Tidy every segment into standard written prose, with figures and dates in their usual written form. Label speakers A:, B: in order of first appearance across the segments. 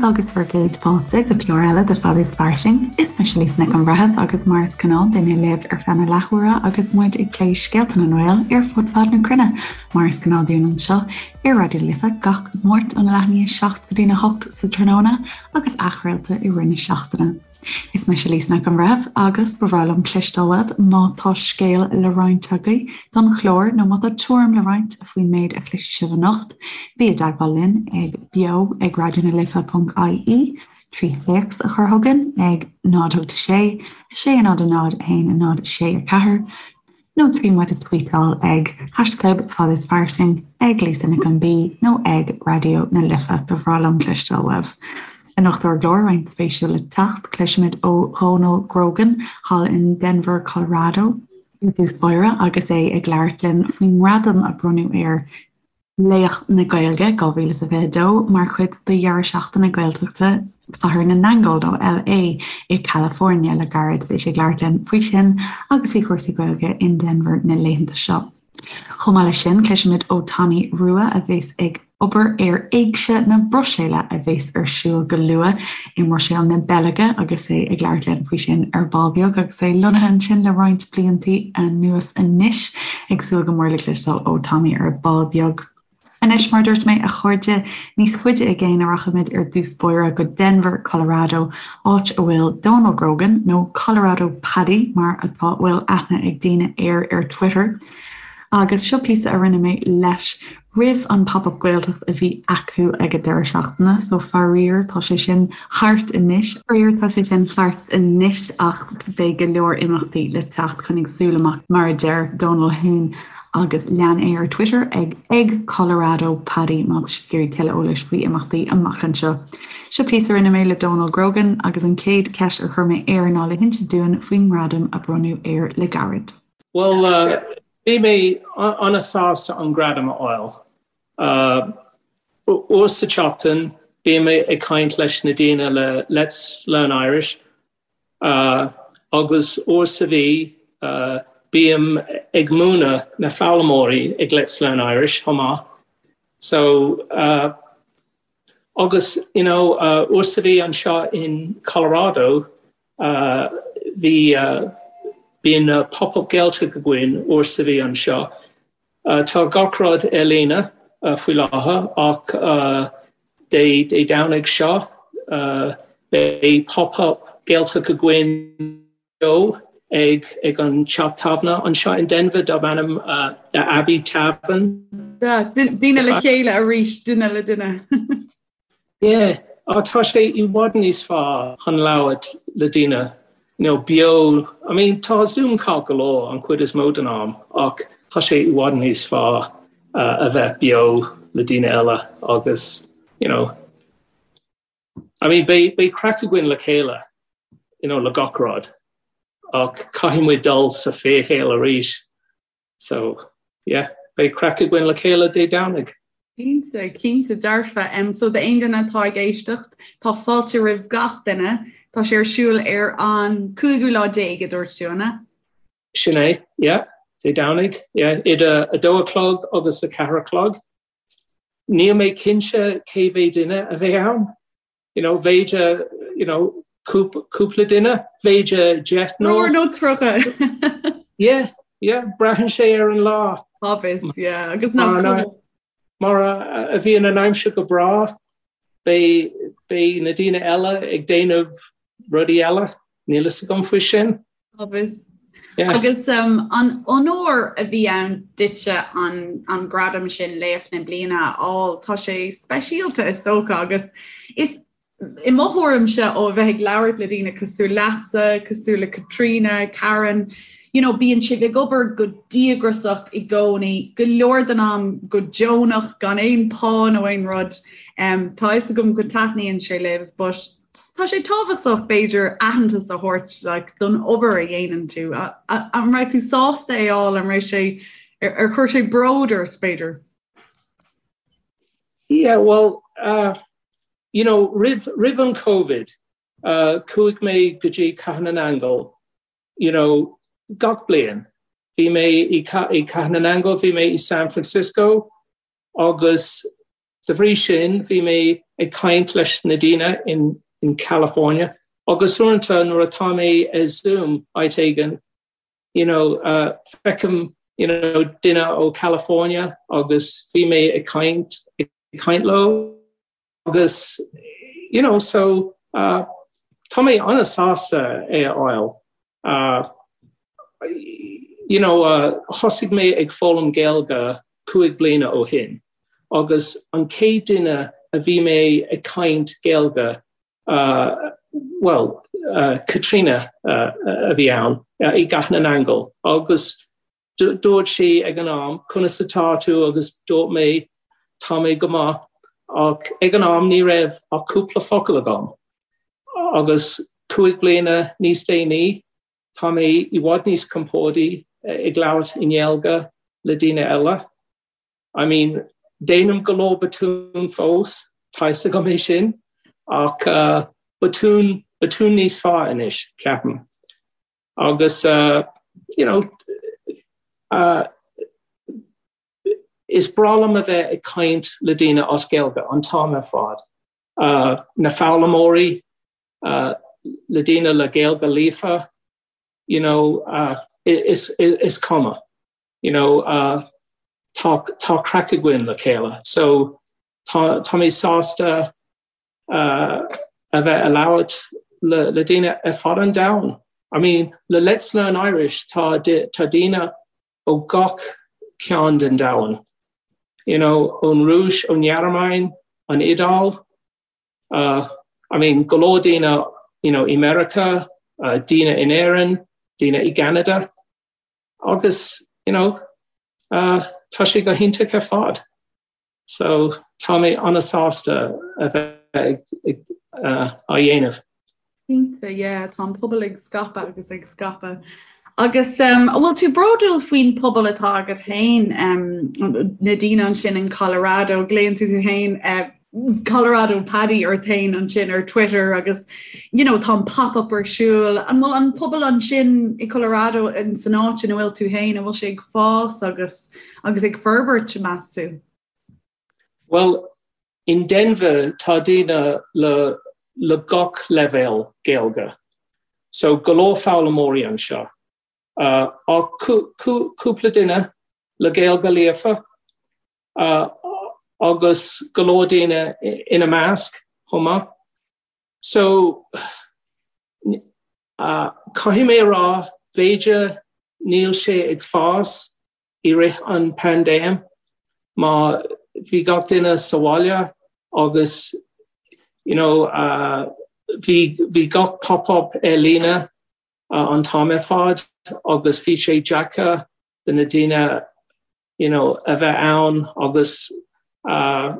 A: agus bhur gcéad fáilte go clár eile de Fad is Fairsing. Is mise Lisa Nic an Bhreithimh agus mar is gnáth beidh mé libh ar feadh na leathuaire agus muid ag plé scéalta na nGael ar fud fad na cruinne mar is gnáth dúinn anseo ar Raidió na Life gach Máirt óna leath i ndiaidh 7 go dtína 8 sa tráthnóna agus athchraolta i rith na seachtaine. Is mise Lisa Nic an Bhreithimh agus ba bhreá liom cloisteáil uaibh má tá scéal le roinnt agaibh don chlár nó má tá tuairim le roinnt faoin méid a chloisfidh sibh anocht, bí i dteagmháil linn ag beo ag raidionalife.ie, trí théacs a chur chugainn ag 0 8 6 6 0 0 1 0 6 4, nó trí muid a tvuíteáil ag haischlib Fad is Fairsing, ag Lisa Nic an B nó ag Raidió na Life. Ba bhreá liom cloisteáil uaibh. Anocht ar an gclár, roinnt spéisiúil le teacht, cloisfimid ó Dhónal Grogan thall in Denver, Colorado i dtús báire agus é ag labhairt linn faoin ngradam a bronnadh air Laoch na Gaeilge 2022 mar chuid de dheireadh seachtaine Gaeltachta Chathair na nAingeal nó LA i California le gairid. Beidh sé ag labhairt linn faoi sin agus faoi chúrsaí Gaeilge in Denver na laethanta seo. Chomh maith leis sin, cloisfimid ó Tommy Rua a bheas ag obair ar Éigse na Bruiséile a bheas ar siúl go luath i mBruiséil na Beilge agus é ag labhairt linn faoi sin ar ball beag agus é lonnaithe ansin le roinnt bliantaí anuas anois. Ag súil go mór le cloisteáil ó Tommy ar ball beag. Anois, mar a dúirt mé, a chairde, níos faide i gcéin a rachaimid ar dtús báire go Denver, Colorado, áit a bhfuil Dónal Grogan, nó Colorado Paddy mar atá bhfuil aithne ag daoine air ar Twitter. Agus seo píosa a rinne mé leis roimh an Pop Up Gaeltacht a bhí acu ag an deireadh seachtaine, so faraor tá sé sin thart anois. Faraor tá sé sin thart anois ach beidh go leor imeachtaí le teacht, coinnigh súil amach mar a deir Dónal féin agus lean é ar Twitter ag ag Colorado Paddy má tá sibh ag iarraidh tuilleadh eolais faoi imeachtaí amach anseo. Seo píosa a rinne mé le Dónal Grogan agus an chéad cheist a chuir mé air ná le hinse dúinn faoin ngradam a bronnadh air le gairid.
B: Bhuel, Bhí mé an-sásta an gradam a fháil. Uair sa tseachtain bím ag caint leis na daoine le Let's Learn Irish agus uair sa mhí bím ag múineadh na foghlaimeoirí ag Let's Learn Irish chomh maith. So agus you know uair sa mhí anseo in Colorado Bhí, bíonn Pop Up Gaeltacht againn uair sa mhí anseo. Tá gach rud ar líne faoi láthair ach Dé Dé Domhnaigh seo beidh Pop Up Gaeltacht againn beo ag ag an teach tábhairne anseo in Denver darb ainm The Abbey Tavern.
A: Daoine le chéile arís, duine le duine.
B: Yeah, á tá sé i bhfad níos fearr chun labhairt le daoine, you know, beo, I mean tá Zoom ceart go leor an chuid is mó den am ach tá sé i bhfad níos fearr a bheith beo le daoine eile agus, you know, I mean beidh, beidh craic againn le chéile, you know, le gach rud ach caithfidh muid dul sa fíorshaol arís. So, yeah, beidh craic againn le chéile Dé Domhnaigh.
A: Cinnte, cinnte dearfa. Um, so d'aon duine atá ag éisteacht, tá fáilte roimh gach duine. Tá sé ar siúl ar an cúigiú lá déag a dúirt tú, an ea?
B: Sin é, yeah, Dé Domhnaigh, yeah, idir a dó a chlog agus a ceathair a chlog. Níl mé cinnte cé mhéad duine a bheidh ann. You know, b'fhéidir, you know, cúpla duine, b'fhéidir
A: deichniúr. Nó 30.
B: Yeah, yeah, braitheann sé ar an lá.
A: Obvious, yeah. Agus nach
B: Mar a bhíonn an aimsir go breá, beidh, beidh na daoine eile ag déanamh rudaí eile, níl fhios agam faoi sin.
A: Obvious. Yeah. Agus um, an onóir a bhí ann duitse an, an gradam sin Laoch na Bliana a fháil, tá sé speisialta is dócha agus is i mo thuairimse ó a bheith ag labhairt le daoine cosúil leatsa, cosúil le Caitríona, Karen, you know, bíonn sibh ag obair go díograiseach i gcónaí, go leor den am go deonach gan aon pá nó aon rud. Um, tá fhios agam go taitníonn sé libh, but Tá sé tábhachtach, b'fhéidir, aitheantas a thabhairt like, don obair a dhéanann tú. An raibh tú sásta é a fháil, an raibh sé, ar chuir sé bród ort, b'fhéidir?
B: Yeah, well, uh, you know, roimh, roimh an Covid, uh, chuaigh mé go dtí Cathair na nAingeal, you know, gach bliain. Bhí mé i, i Cathair na nAingeal, bhí mé i San Francisco, agus. de bhrí sin bhí mé ag caint leis na daoine in in California agus uaireanta nuair atá mé ar Zoom áit éigin you know uh, feicim you know, duine ó California agus bhí mé ag caint ag caint leo agus you know so uh, tá mé an-sásta é a fháil. Uh, you know, uh, thosaigh mé ag foghlaim Gaeilge 5 bliana ó shin agus an chéad duine a bhí mé ag caint Gaeilge uh, well, uh, Katrina uh, a bhí ann uh, i gCathair na nAingeal agus Dúirt sí ag an am, 'Conas atá tú?' agus dúirt mé, 'Tá mé go maith', ach ag an am ní raibh ach cúpla focal agam. Agus 5 bliana níos déanaí, tá mé i bhfad níos compordaí ag labhairt i nGaeilge le daoine eile. I mean, déanaim go leor botún fós, tá fhios agam é sin, ach botún, botún níos fearr anois, ceapaim. Agus you know is breá liom a bheith ag caint le daoine as Gaeilge an t-am ar fad. Na foghlaimeoirí, le daoine le Gaeilge líofa, you know is is cuma. You know tá tá craic againn le chéile. So tá tá mé sásta a bheith ag labhairt le daoine ar fud an domhain. I mean, le Let's Learn Irish tá tá daoine ó gach cearn den domhan. You know, ón Rúis, ón nGearmáin, an Iodáil, uh, I mean, go leor daoine you know, i Meiriceá, uh, daoine in Éirinn, daoine i gCeanada. Agus, you know, uh, tá sé go hiontach ar fad. So tá mé an-sásta a bheith ag á dhéanamh.
A: Cinnte, yeah, tá an pobal ag scaipeadh agus ag scaipeadh. Agus um, an bhfuil tú bródúil faoin pobal atá agat féin, um, na daoine ansin in Colorado, glaonn tú tú féin uh, Colorado Paddy ort féin ansin ar Twitter agus you know, tá an pop-up ar siúl. An bhfuil an pobal ansin i Colorado in san áit ina bhfuil tú féin, an bhfuil sé ag fás agus agus ag forbairt, meas tú?
B: Bhuel, in Denver tá daoine le le gach leibhéal Gaeilge. So go leor foghlaimeoirí anseo. Uh, ach cúpla duine le Gaeilge líofa uh, agus go leor daoine ina measc chomh maith. So uh, caithfidh mé a rá, b'fhéidir níl sé ag fás i rith an paindéim mar bhí gach duine sa bhaile agus you know uh, bhí bhí gach pop-up ar líne uh, an t-am ar fad agus bhí sé deacair do na daoine you know, a bheith ann agus uh,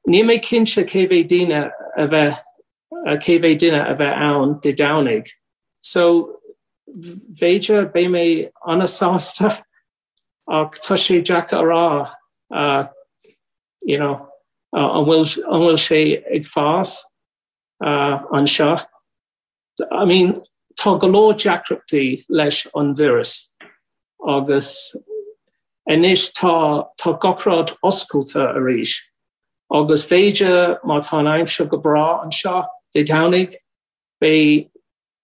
B: níl mé cinnte cé mhéad daoine a bheith cé mhéad duine a bheith ann Dé Domhnaigh. So b'fhéidir beidh mé an-sásta ach tá sé deacair a rá uh, you know, uh, an bhfuil an bhfuil sé ag fás uh, anseo. I mean, tá go leor deacrachtaí leis an víreas agus anois tá tá gach rud oscailte arís agus b'fhéidir má tá an aimsir go breá anseo Dé Domhnaigh beidh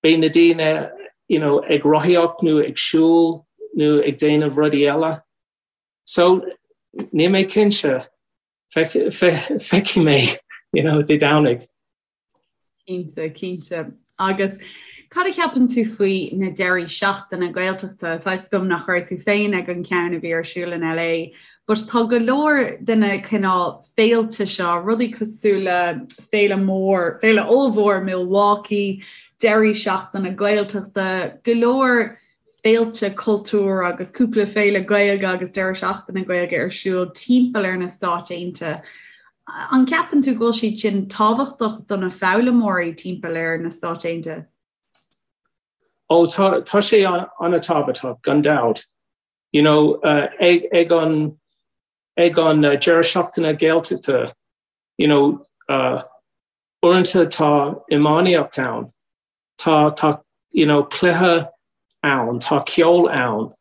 B: beidh na daoine you know, ag rothaíocht nó ag siúl nó ag déanamh rudaí eile. So níl mé cinnte feicfidh mé you know, Dé Domhnaigh.
A: Cinnte, cinnte. Agus cad a cheapann tú faoi na deirí seachtaine Gaeltachta? Tá fhios agam nach raibh tú féin ag an ceann a bhí ar siúl in LA, but tá go leor de na cineál féilte seo, rudaí cosúil le féile mór, féile ollmhór Milwaukee, deirí seachtaine Gaeltachta, go leor féilte cultúir agus cúpla féile Gaeilge agus deireadh seachtaine Gaeilge ar siúl timpeall ar na Stáit Aontaithe. An gceapann tú go bhfuil siad sin tábhachtach do na foghlaimeoirí timpeall ar na Stáit Aontaithe?
B: Ó tá tá sé an-tábhachtach gan dabht. You know, uh, ag, ag an ag an uh, deireadh seachtaine Gaeltachta, you know, uh, uaireanta tá iománaíocht ann. Tá tá you know cluiche ann, tá ceol ann,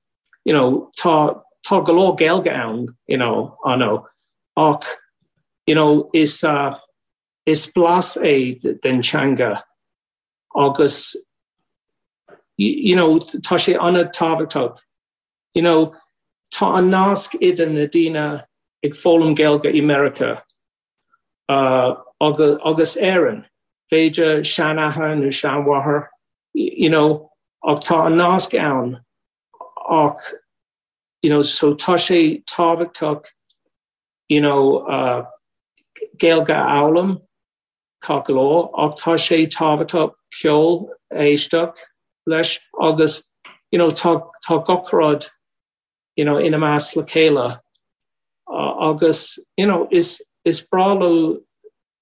B: you know tá tá go leor Gaeilge ann, you know, I know. Ach You know, is uh, is blas é den teanga agus you know, tá sé an-tábhachtach. You know, tá an nasc idir na daoine ag foghlaim Gaeilge i Meiriceá uh, agus, agus Éirinn. B'fhéidir seanathair nó seanmháthair, you know, ach tá an nasc ann ach you know, so tá sé tábhachtach you know, uh, Gaeilge a fhoghlaim gach lá ach tá sé tábhachtach ceol a éisteacht leis agus you know, tá, tá gach rud you know, ina measc le chéile uh, agus you know, is, is breá leo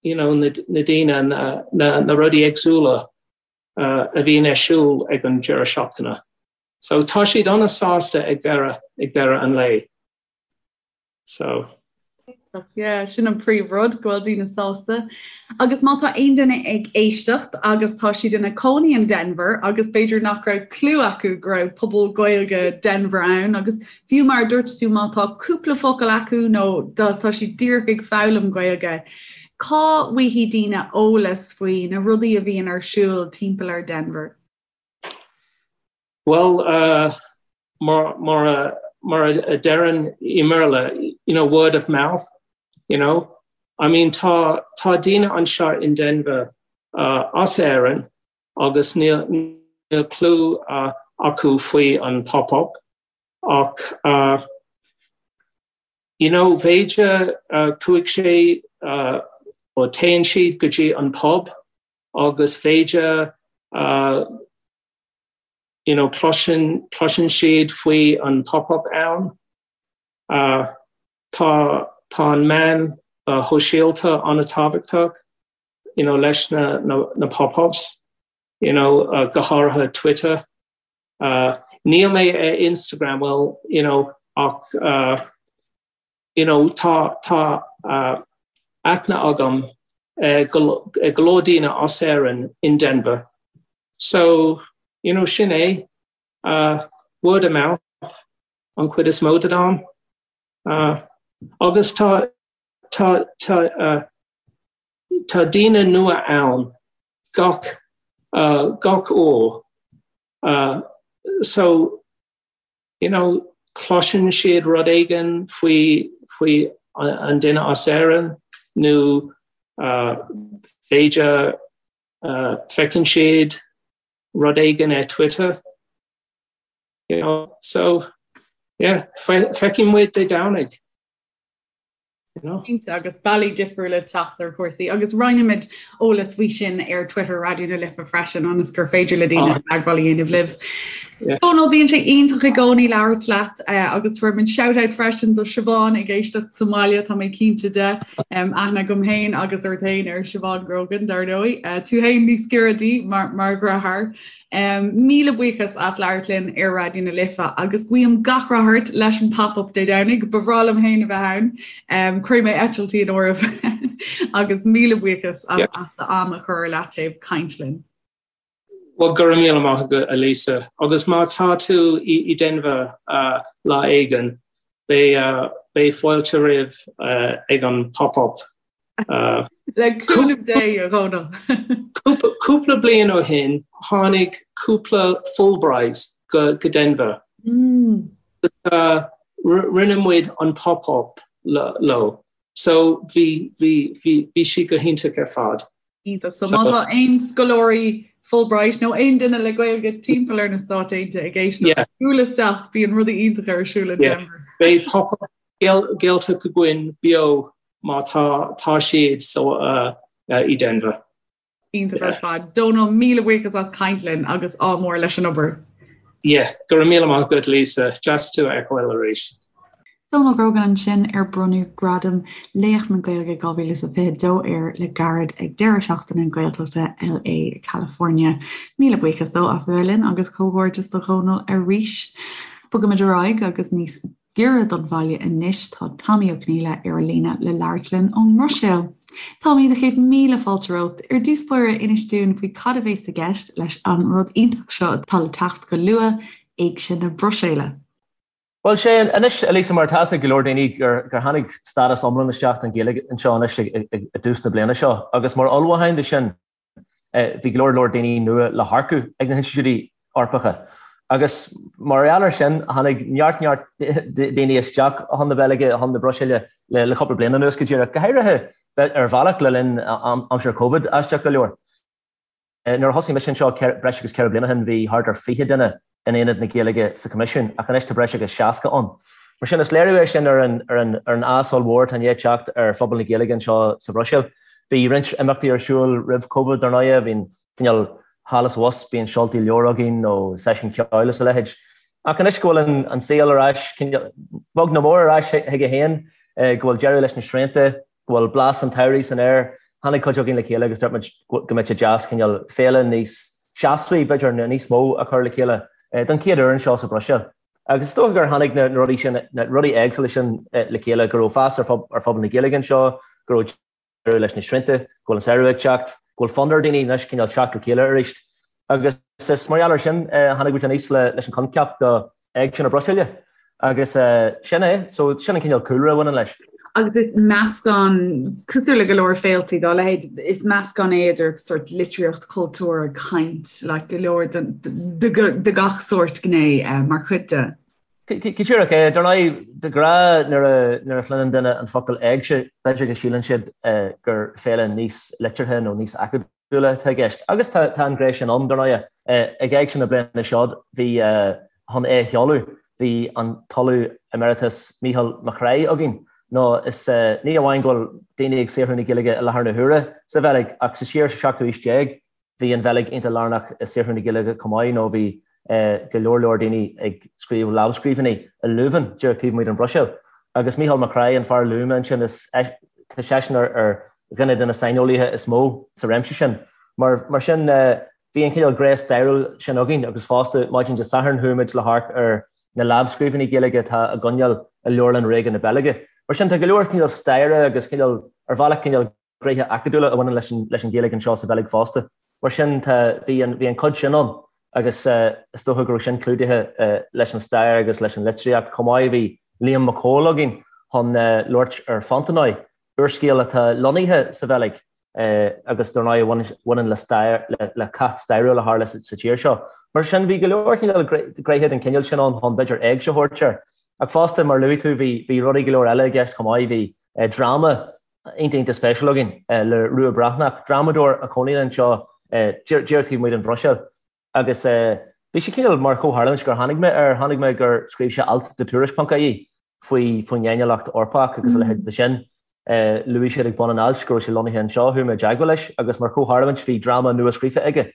B: you know, na, na daoine na, na, na rudaí éagsúla uh, a bhíonn ar siúl ag an deireadh seachtaine. So tá siad an-sásta ag deireadh ag deireadh an lae. So.
A: Yeah, sin an príomhrud go bhfuil daoine sásta. Agus má tá aon duine ag éisteacht agus tá siad ina cónaí in Denver agus b'fhéidir nach raibh clue acu go raibh pobal Gaeilge Denver ann agus fiú mar a dúirt tú má tá cúpla focal acu nó tá siad díreach ag foghlaim Gaeilge, cá bhfaighidh daoine eolas faoi na rudaí a bhíonn ar siúl timpeall ar Denver?
B: Bhuel, uh, mar, mar, a, mar a deireann i mBéarla, you know, word of mouth, you know. I mean, tá, tá daoine anseo in Denver uh, as Éirinn agus níl, níl clue uh, acu faoi an pop-up ach uh, you know, b'fhéidir uh, chuaigh sé uh, ó téann siad go dtí an pub agus b'fhéidir uh, you know, cloiseann, cloiseann siad faoi an pop-up ann. Uh, tá, tá an meán uh, shóisialta an-tábhachtach, you know, leis na, na, na pop-ups, you know, uh, go háirithe Twitter. Uh, níl mé ar Instagram, well, you know, ach, uh, you know, tá, tá uh, aithne agam uh, go, uh, go leor daoine as Éirinn in Denver. So, you know, sin é, uh, word of mouth an chuid is mó den am. Uh, agus tá, tá, tá, uh, tá daoine nua ann gach, uh, gach uair. Uh, so, you know, cloiseann siad rud éigin faoi, faoi an duine as Éirinn nó uh, b'fhéidir uh, feiceann siad rud éigin ar Twitter. You know, so, yeah, feicfidh muid Dé Domhnaigh.
A: Cinnte, agus bealaí difriúla teacht ar chúrsaí agus roinnfimid eolas faoi sin ar Twitter Raidió na Life freisin ionas gur féidir le daoine ah. teagmháil a dhéanamh libh. Dónal bíonn sé iontach i gcónaí labhairt leat eh, agus tabharfaidh muid shout-out freisin do Siobhán ag éisteacht sa mbaile tá mé cinnte de aithne agam féin agus ort féin ar Siobhán Grogan dar ndóigh. Eh, tú féin níos giorra di mar mar dheartháir. Míle buíochas as labhairt linn ar Raidió na Life agus guím gach rath ort leis an Pop-Up Dé Domhnaigh. Ba bhreá liom féin a bheith ann. Cuirfidh mé eitiltí in áirithe agus míle buíochas as d'am a chur ar leataobh caint linn.
B: Bhuel, go raibh míle maith agat, a Lisa. Agus má tá tú i Denver lá éigin, beidh fáilte roimh ag an Pop-Up.
A: Le cúnamh Dé, a Dhónaill.
B: Cúpla bliain ó shin, tháinig cúpla Fulbright go Denver. Rinne muid an pop-up leo. So bhí bhí bhí bhí sé go hiontach ar fad.
A: Iontach. So má tá aon scoláirí Fulbright nó aon duine le Gaeilge timpeall ar na Stáit Aontaithe ag éisteacht, buail isteach, bíonn rudaí iontacha ar siúl in Denver.
B: Beidh pop-up Gaeltacht againn beo má tá tá siad so i Denver.
A: Iontach ar fad. Dónal, míle buíochas as caint linn agus ádh mór leis an obair.
B: Yeah, go raibh míle maith agat Lisa, deas tú a fheiceáil arís.
A: Dónal Grogan ansin ar bronnadh Gradam Laoch na Gaeilge 2022 air le gairid ag deireadh seachtaine na Gaeltachta LA California. Míle buíochas dó as a bheith linn agus comhghairdeas do Dhónal arís. Bogaimid ar aghaidh agus níos giorra don bhaile anois, tá Tommy Ó Conghaile ar an líne le labhairt linn ón mBruiséil. Tommy, do chéad míle fáilte romhat. Ar dtús báire, inis dúinn faoi cad a bhéas i gceist leis an rud iontach seo atá le teacht go luath, Éigse na Bruiséile.
C: Bhuel, sé anois, a Lisa, mar tá 'fhios ag go leor daoine gur tháinig stádas iomlán isteach don Ghaeilge anseo anois i dtús na bliana seo agus mar ullmhúchán do sin bhí go leor leor daoine nua le hearcú ag na hinstitiúidí Eorpacha. Agus mar gheall air sin tháinig neart neart daoine isteach chun na Beilge, chun na Bruiséile le cúpla bliain anuas go díreach, go háirithe ar bhealach le linn aimsir Covid, aisteach go leor. Nuair a thosaigh mise anseo breis agus 4 bliana ó shin bhí thart ar 20 duine in Aonad na Gaeilge sa Choimisiún ach anois tá breis agus 60 ann. Mar sin is léiriú é sin ar an ar an ar an fhás ollmhór atá i ndiaidh teacht ar phobal na Gaeilge anseo sa Bhruiséil. Bhí roinnt imeachtaí ar siúl roimh Covid dar ndóighe, bhí an cineál thall is abhus, bíonn seoltaí leabhar againn nó seisiún ceoil is a leithéid. Ach anois go bhfuil an an saol ar ais, cineál beag nó mór ar ais chuige féin, go bhfuil deireadh leis na srianta, go bhfuil blas an tsamhraidh san aer. Tháinig cuid againn le chéile agus dúirt muid go mbeadh sé deas cineál féile níos seasmhaí, b'fhéidir, nó níos mó a chur le chéile don chéad uair anseo sa Bhruiséil. Agus is dócha gur tháinig na rudaí sin, na rudaí éagsúla sin le chéile, go raibh fás ar phobal na Gaeilge anseo, go raibh deireadh leis na srianta, go bhfuil an samhradh ag teacht, go bhfuil fonn ar dhaoine anois cineál teacht le chéile arís. Agus is mar gheall air sin a tháinig muid aníos leis an choincheap do Éigse na Bruiséile. Agus sin é, so sin an cineál cúlra a bhaineann leis.
A: Agus is meascán, cosúil le go leor féiltí dá leithéid, is meascán é idir sort litríocht, cultúr, caint, like go leor de gach sórt gné mar chuid de.
C: Go díreach é. Dar ndóigh, de ghnáth nuair a chluineann duine an focal éigse, b'fhéidir go síleann siad gur féile níos liteartha nó níos acadúla atá i gceist. Agus tá an ghné sin ann, dar ndóigh. Ag Éigse na bliana seo, bhí, chun é a sheoladh, bhí an tOllamh Emeritus Mícheál Mac Craith againn. Nó is ní amháin go bhfuil daoine ag saothrú na Gaeilge i láthair na huaire sa Bheilg, ach sa siar sa seachtú haois déag, Bhí an Bheilg iontach lárnach i saothrú na Gaeilge chomh maith nó bhí go leor leor daoine ag scríobh lámhscríbhinní i Leuven, díreach taobh amuigh den Bhruiséil. Agus Mícheál Mac Craith, an fear a luaigh mé ansin, is tá seisean ar dhuine de na saineolaithe is mó sa réimse sin. Mar mar sin bhí an cineál gné stairiúil sin againn agus fosta maidin Dé Sathairn chuaigh muid le hamharc ar na lámhscríbhinní Gaeilge atá á gcoinneáil i Leabharlann Ríoga na Beilge. Mar sin tá go leor cineál staire agus cineál ar bhealach cineál gnéithe acadúla a bhaineann leis an leis an Ghaeilge anseo sa Bheilg fosta. Mar sin tá, bhí an, bhí an cuid sin ann agus is dócha go raibh sin clúdaithe leis an stair agus leis an litríocht chomh maith. Bhí Liam Mac Cóil againn chun labhairt ar Fontenoy, úrscéal atá lonnaithe sa Bheilg agus dar ndóigh a bhaineann le stair, le cath stairiúil a tharla sa tír seo. Mar sin bhí go leor cineál gnéithe den chineál sin ann chun b'fhéidir éigse a thabhairt air. Ach fosta, mar a luaigh tú, bhí, bhí rudaí go leor eile i gceist chomh maith. Bhí dráma iontach iontach spéisiúil againn le Rua Breathnach, drámadóir a chónaíonn anseo díreach taobh amuigh den Bhruiséil agus bhí sé cineál mar chomhtharlúint gur tháinig mé air, tháinig mé gur scríobh sé alt do Tuairisc.ie faoi faoin fhéiniúlacht Eorpach agus a leithéid de sin. Luaigh sé ag bun an ailt go raibh sé lonnaithe anseo, chuaigh mé i dteagmháil leis agus mar chomhtharlúint bhí dráma nua scríofa aige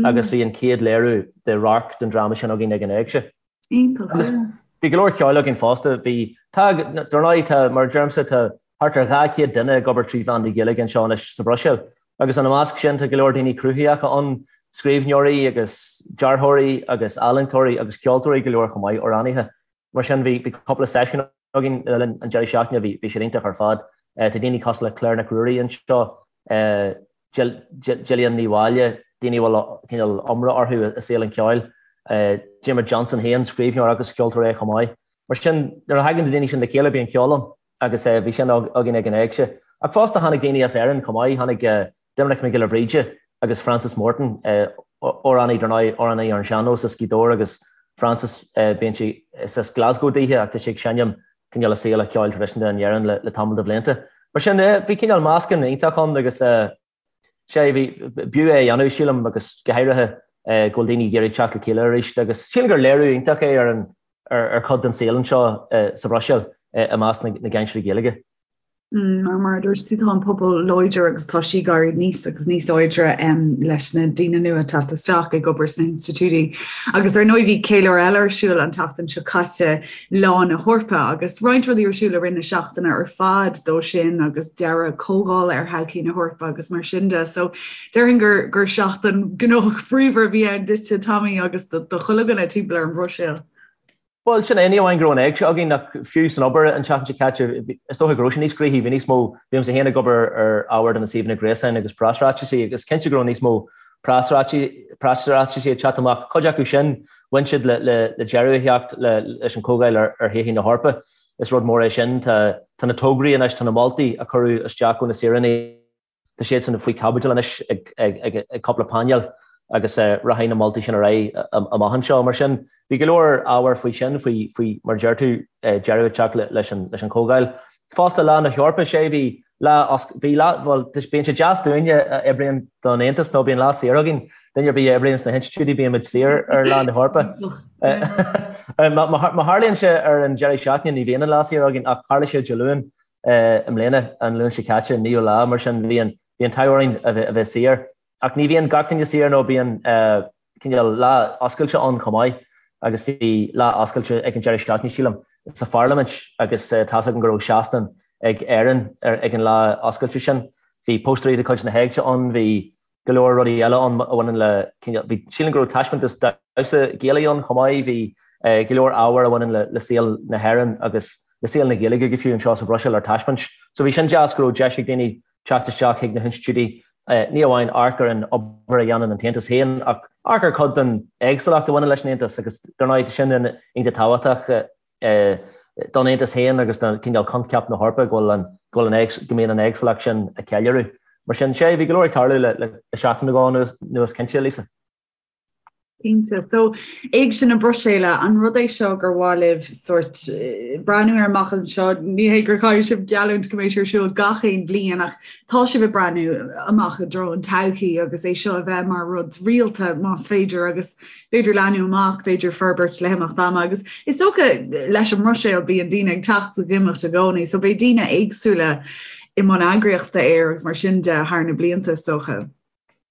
C: agus bhí an chéad léiriú de radharc den dráma sin againn ag an Éigse.
A: Iontach.
C: Bhí go leor ceoil againn fosta. Bhí, tá, dar ndóigh, tá, mar a deirimse, tá thart ar 200 duine ag obair trí mheán na Gaeilge anseo anois sa Bhruiséil. Agus ina measc sin tá go leor daoine cruthaitheacha ann, scríbhneoirí agus dearthóirí agus ealaíontóirí agus ceoltóirí go leor chomh maith, amhránaithe. Mar sin bhí, bhí cúpla seisiún againn le linn an deireadh seachtaine, bhí, bhí siad iontach ar fad. Tá daoine cosúil le Claire Nic Ruairí anseo, Gillian Ní Mháille, daoine a bhfuil cineál iomrá orthu i saol an cheoil, Diarmuid Johnson féin, scríbhneoir agus ceoltóir é chomh maith. Mar sin, nuair a thagann na daoine sin le chéile bíonn ceol ann agus bhí sin againn ag an Éigse. Ach fosta tháinig daoine as Éirinn chomh maith, tháinig Doimnic Mac Giolla Bhríde agus Francis Morton, amhránaí dar ndóigh, amhránaí ar an sean-nós as Gaoth Dobhair agus Francis, bíonn sé, is as Glasgow daoithe ach tá sé ag seinm cineál i saol an cheoil traidisiúnta in Éirinn le tamall de bhlianta. Mar sin, bhí cineál meascán iontach ann agus sé, bhí, b'fhiú é a dhéanamh, sílim, agus go háirithe go bhfuil daoine ag iarraidh teacht le chéile arís agus sílim gur léiriú iontach é ar an, ar chuid den saol anseo sa Bhruiséil i measc na gcainteoirí Gaeilge.
A: Mar mar a dúirt tú tá an pobal láidir agus tá sí ag éirí níos agus níos láidre leis na daoine nua ag teacht isteach ag obair sna hinstitiúidí. Agus ar ndóigh bhí ceiliúradh eile ar siúl an tseachtain seo caite, Lá na hEorpa, agus roinnt rudaí ar siúl i rith na seachtaine ar fad dó sin agus deireadh comhdhála ar thodhchaí na hEorpa agus mar sin de. So déarfainn gur gur seachtain gnóthach bríomhar a bhí ann duitse Tommy agus do chuile dhuine timpeall ar an Bhruiséil.
C: Bhuel, sin é, ní amháin go raibh an éigse againn ach fiú san obair an tseachtain seo caite, is dócha go raibh sé níos gnoithí, bhí níos mó, bímse féin ag obair ar ábhar do na suíomhanna gréasáin agus preasráitisí agus cinnte go raibh níos mó preasráitisí ag teacht amach, cuid acu sin. Bhain siad le le deireadh a theacht leis an Chomhdháil ar Thodhchaí na hEorpa. Is rud mór é sin. Tá na tograí anois, tá na moltaí a cuireadh isteach ó na saoránaigh, tá siadsan faoi chaibidil anois ag cúpla painéal agus rachaidh na moltaí sin ar aghaidh amach anseo. Mar sin, bhí go leor ábhair faoi sin, faoi, mar a deir tú, deireadh a theacht leis an Chomhdháil. Fosta, Lá na hEorpa, sé, bhí lá, bhí lá, bhuel, bíonn sé deas dúinne a oibríonn don Aontas nó bíonn lá saor againn. Duine ar bith a oibríonn sna hinstitiúidí bíonn muid saor ar Lá na hEorpa. Má tharlaíonn sé ar an deireadh seachtaine ní bhíonn an lá saor againn ach tharla sé Dé Luain i mbliana, an Luan seo caite, an naoú lá, mar sin bhí an t-ádh orainn a bheith saor. Ach ní bhíonn gach duine saor nó bíonn cineál lá oscailte ann chomh maith agus bhí lá oscailte ag an deireadh seachtaine, sílim, sa Pharlaimint agus tá's agam go raibh seastán ag Éirinn ag an lá oscailte sin. Bhí póstaerí de chuid na hÉigse ann, bhí go leor rudaí eile ann a bhaineann le cineál, bhí, sílim go raibh taispeántas damhsa Gaelaigh ann chomh maith, bhí go leor ábhar a bhaineann le saol na hÉireann agus le saol na Gaeilge go fiú anseo sa Bhruiséil ar taispeáint. So bhí sin deas go raibh deis ag daoine teacht isteach chuig na hinstitiúidí, ní amháin amharc ar an obair a dhéanann an tAontas féin, ach amharc ar chuid den éagsúlacht a bhaineann leis an Aontas agus dar ndóigh tá sin iontach tábhachtach don Aontas féin agus do chineál coincheap na hEorpa go bhfuil an, go bhfuil an, go mbíonn an éagsúlacht sin á ceiliúradh. Mar sin, sé, bhí go leor ag tarlú le seachtain nó dhó anuas cinnte, Lisa.
A: Cinnte. So, Éigse na Bruiséile, an rud é seo gur mhaith libh sórt breathnú air amach anseo? Ní hé gur chaithfidh sibh geallúint go mbeidh sé ar siúl gach aon bhliain ach tá sibh ag breathnú amach i dtreo an todhchaí agus é seo a bheith mar rud rialta más féidir agus b'fhéidir leathnú amach, b'fhéidir forbairt le himeacht ama agus is dócha leis an mBruiséil bíonn daoine ag teacht is ag imeacht i gcónaí so beidh daoine éagsúla i mbun eagraíochta air agus mar sin de thar na blianta is dócha.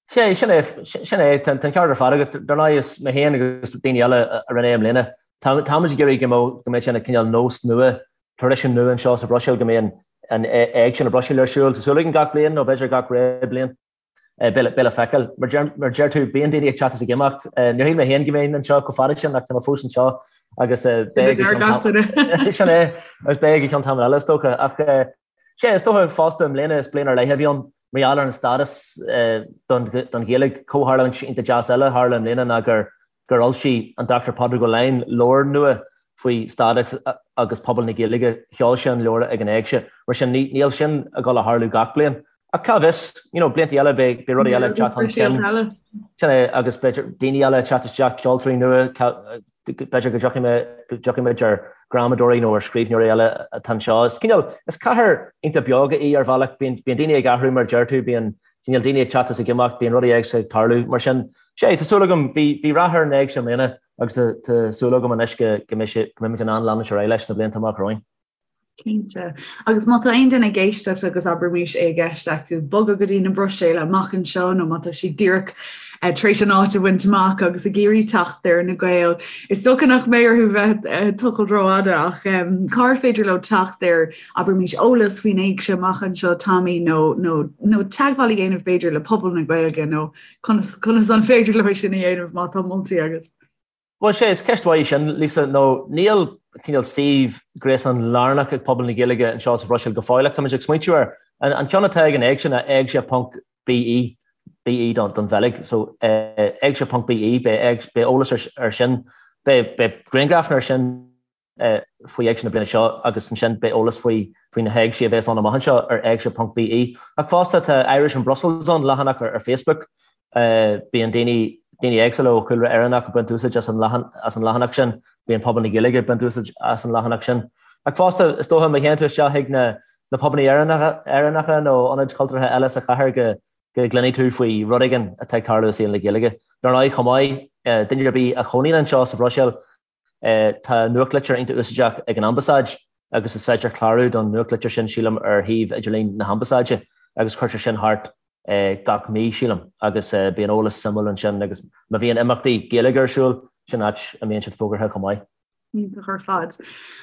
C: Sea, sin é, sin é, tá an ceart ar fad agat. Dar ndóigh, is mé féin agus daoine eile a rinne é i mbliana, táimid ag iarraidh go mbeadh, go mbeadh sé ina cineál nós nua, traidisiún nua anseo sa Bhruiséil, go mbíonn an Éigse na Bruiséile ar siúl. Tá súil againn gach bliain, nó b'fhéidir gach ré bliain, beidh le feiceáil. Mar a deir tú, bíonn daoine ag teacht is ag imeacht. Níor shíl mé féin go mbeinn anseo chomh fada sin ach tá mé fós anseo agus beidh go ceann sin é, agus beidh go ceann tamall eile is dócha. Ach Sea, is dócha fosta i mbliana, is bliain ar leith a bhí ann mar gheall ar an stádas don Ghaeilge. Comhtharlúint iontach deas eile a tharla i mbliana ná gur fhoilsigh an Dr Pádraig Ó Laighin leabhar nua faoi stádas agus pobal na Gaeilge. Sheol sé an leabhar ag an Éigse. Mar sin, níl sin ag dul a tharlú gach bliain. Ach cá bhfios, you know, blianta eile beidh rudaí eile ag teacht chun cinn. Sin é, agus b'fhéidir daoine eile ag teacht isteach, ceoltóirí nua, b'fhéidir go dtiocfaidh mé, go dtiocfaidh muid ar ghramadóirí nó ar scríbhneoirí eile atá anseo. Is cineál, is cathair iontach beoga í ar bhealach, bíonn, bíonn daoine ag athrú mar a deir tú, bíonn cineál daoine ag teacht is ag imeacht, bíonn rudaí éagsúla ag tarlú. Mar sin, sea, tá súil agam, bhí, bhí rath ar an Éigse i mbliana agus tá, tá súil agam anois go, go mbeidh sé, go mbeimid in ann leanúint ar aghaidh leis na blianta amach romhainn.
A: Cinnte. Agus má tá aon duine ag éisteacht agus abraimis é i gceist acu bogadh go dtí na Bruiséile amach anseo nó má tá siad díreach tar éis an áit a bhaint amach agus ag iarraidh teacht ar na Gaeil, is dócha nach mbeidh orthu bheith ag tochailt rófhada ach cár féidir leo teacht ar abraimis eolas faoin éigse amach anseo Tommy nó nó nó teagmháil a dhéanamh b'fhéidir le pobal na Gaeilge nó conas conas an féidir leo sin a dhéanamh má tá moltaí agat?
C: Bhuel, sea, is ceist mhaith í sin, Lisa, nó níl cineál suíomh gréasáin lárnach ag pobal na Gaeilge anseo sa Bhruiséil go fóill ach táimid ag smaointiú air. An ceann atá ag an Éigse ná éigse ponc BE, BE don Bheilg, so éigse ponc BE, beidh eolas ar sin, beidh grianghrafanna ar sin. faoi Éigse na bliana seo agus ansin beidh eolas faoi faoi na héigsí a bheas ann amach anseo ar éigse ponc BE. Ach fosta tá Irish in Brussels ann, leathanach ar Facebook. Bíonn daoine daoine éagsúla ó chúlra Éireannach ag baint úsáid as an as an leathanach sin, bíonn pobal na Gaeilge ag baint úsáid as an leathanach sin. Ach fosta is dócha má théann tú isteach chuig na na pubanna Éireannacha Éireannacha nó ionaid chultúrtha eile sa chathair go go gcluinfidh tú faoi rud éigin atá ag tarlú i saol na Gaeilge. Dar ndóigh chomh maith, duine ar bith a chónaíonn anseo sa Bhruiséil, Tá nuachtlitir iontach úsáideach ag an Ambasáid agus is féidir clárú don nuachtlitir sin, sílim, ar shuíomh idirlín na hAmbasáide agus cuirtear sin thart gach mí, sílim, agus bíonn eolas suimiúil ansin agus má bhíonn imeachtaí Gaeilge ar siúl, sin áit a mbíonn siad fógartha chomh maith.
A: Iontach ar fad.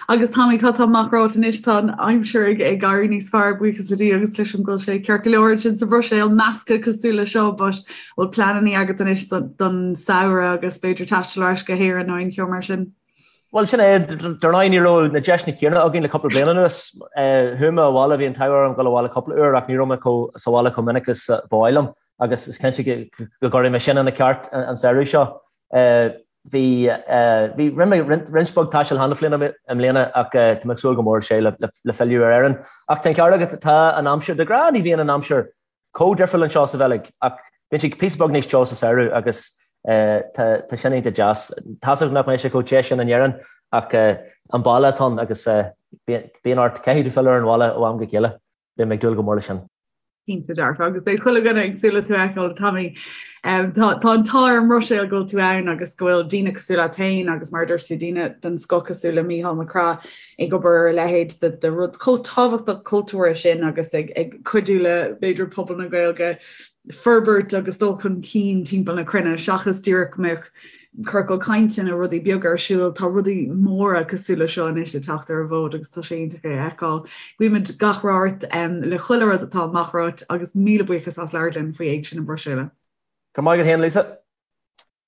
A: Agus Tommy, cad tá amach romhat anois? Tá an aimsir ag éirí níos fearr, buíochas le Dia agus cloisim go bhfuil sé ceart go leor ansin sa Bhruiséil, measctha cosúil le seo, but bhfuil pleananna agat anois don samhradh agus b'fhéidir taisteal ar ais go hÉirinn nó aon cheo mar sin?
C: Bhuel, sin é. Dar ndóigh, ní raibh na deiseanna céanna againn le cúpla bliain anuas. Chuaigh mé abhaile, bhí an t-ádh orm dul abhaile cúpla uair ach ní raibh mé chomh sa bhaile chomh minic is ba mhaith liom agus is cinnte go gcuirfidh mé sin ina ceart an samhradh seo. Bhí, bhí, rinne mé roinnt beag taistil cheana féin i mbliana ach tá mé ag súil go mór sé le filleadh ar Éirinn. Ach tá an ceart agat, tá an aimsir, de ghnáth ní bhíonn an aimsir chomh difriúil anseo sa Bheilg ach bíonn sé píosa beag níos teo sa samhradh agus tá, tá sin iontach deas. Tá's agam nach mbeidh sé chomh te sin in Éirinn ach an baile atá ann agus bíonn ort, caithfidh tú filleadh ar an bhaile ó am go chéile. Beidh mé ag dúil go mór leis sin.
A: Cinnte dearfa, agus beidh chuile dhuine ag súil le tú a fheiceáil, Tommy. Tá an t-ádh ar an mBruiséil go bhfuil tú ann agus go bhfuil daoine cosúil leat féin agus mar a dúirt tú daoine den scoth cosúil le Mícheál Mac Craith ag obair ar a leithéid de rud chomh tábhachtach cultúrtha sin agus ag cuidiú le b'fhéidir pobal na Gaeilge forbairt agus dul chun cinn timpeall na cruinne seachas díreach go mbeadh ciorcal cainte nó rudaí beaga ar siúl, tá rudaí móra cosúil le seo anois ag teacht ar an bhfód agus tá sé iontach é a fheiceáil. Guímid gach rath ort le chuile rud atá amach romhat agus míle buíochas as labhairt linn faoi Éigse na Bruiséile.
C: Go raibh maith agat féin, Lisa.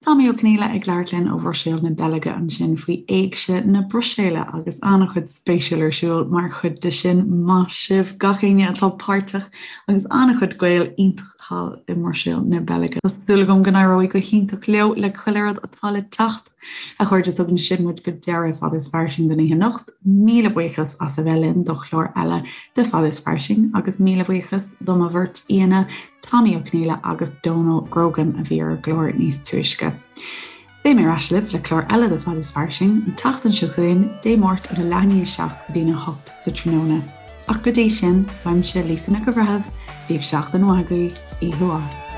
A: Tommy Ó Conghaile ag labhairt linn ó Bhruiséil na Beilge ansin faoi Éigse na Bruiséile agus an-chuid spéisiúil ar siúl mar chuid de sin. Maith sibh gach éinne atá páirteach agus an-chuid Gael iontach thall i mBruiséil na Beilge. Tá súil agam go n-éireoidh go hiontach leo le chuile rud atá le teacht. A chairde, tugann sin muid go deireadh Fad is Fairsing don oíche anocht. Míle buíochas as a bheith linn do chlár eile de Fad is Fairsing agus míle buíochas do mo bheirt aíonna, Tommy Ó Conghaile agus Dónal Grogan a bhí ar an gclár níos túisce. Beidh mé ar ais libh le clár eile de Fad is Fairsing an tseachtain seo chugainn, Dé Máirt óna leath i ndiaidh 7 go dtína 8 sa tráthnóna. Ach go dtí sin, uaimse Lisa Nic an Bhreithimh, bíodh seachtain mhaith agaibh, oíche mhaith.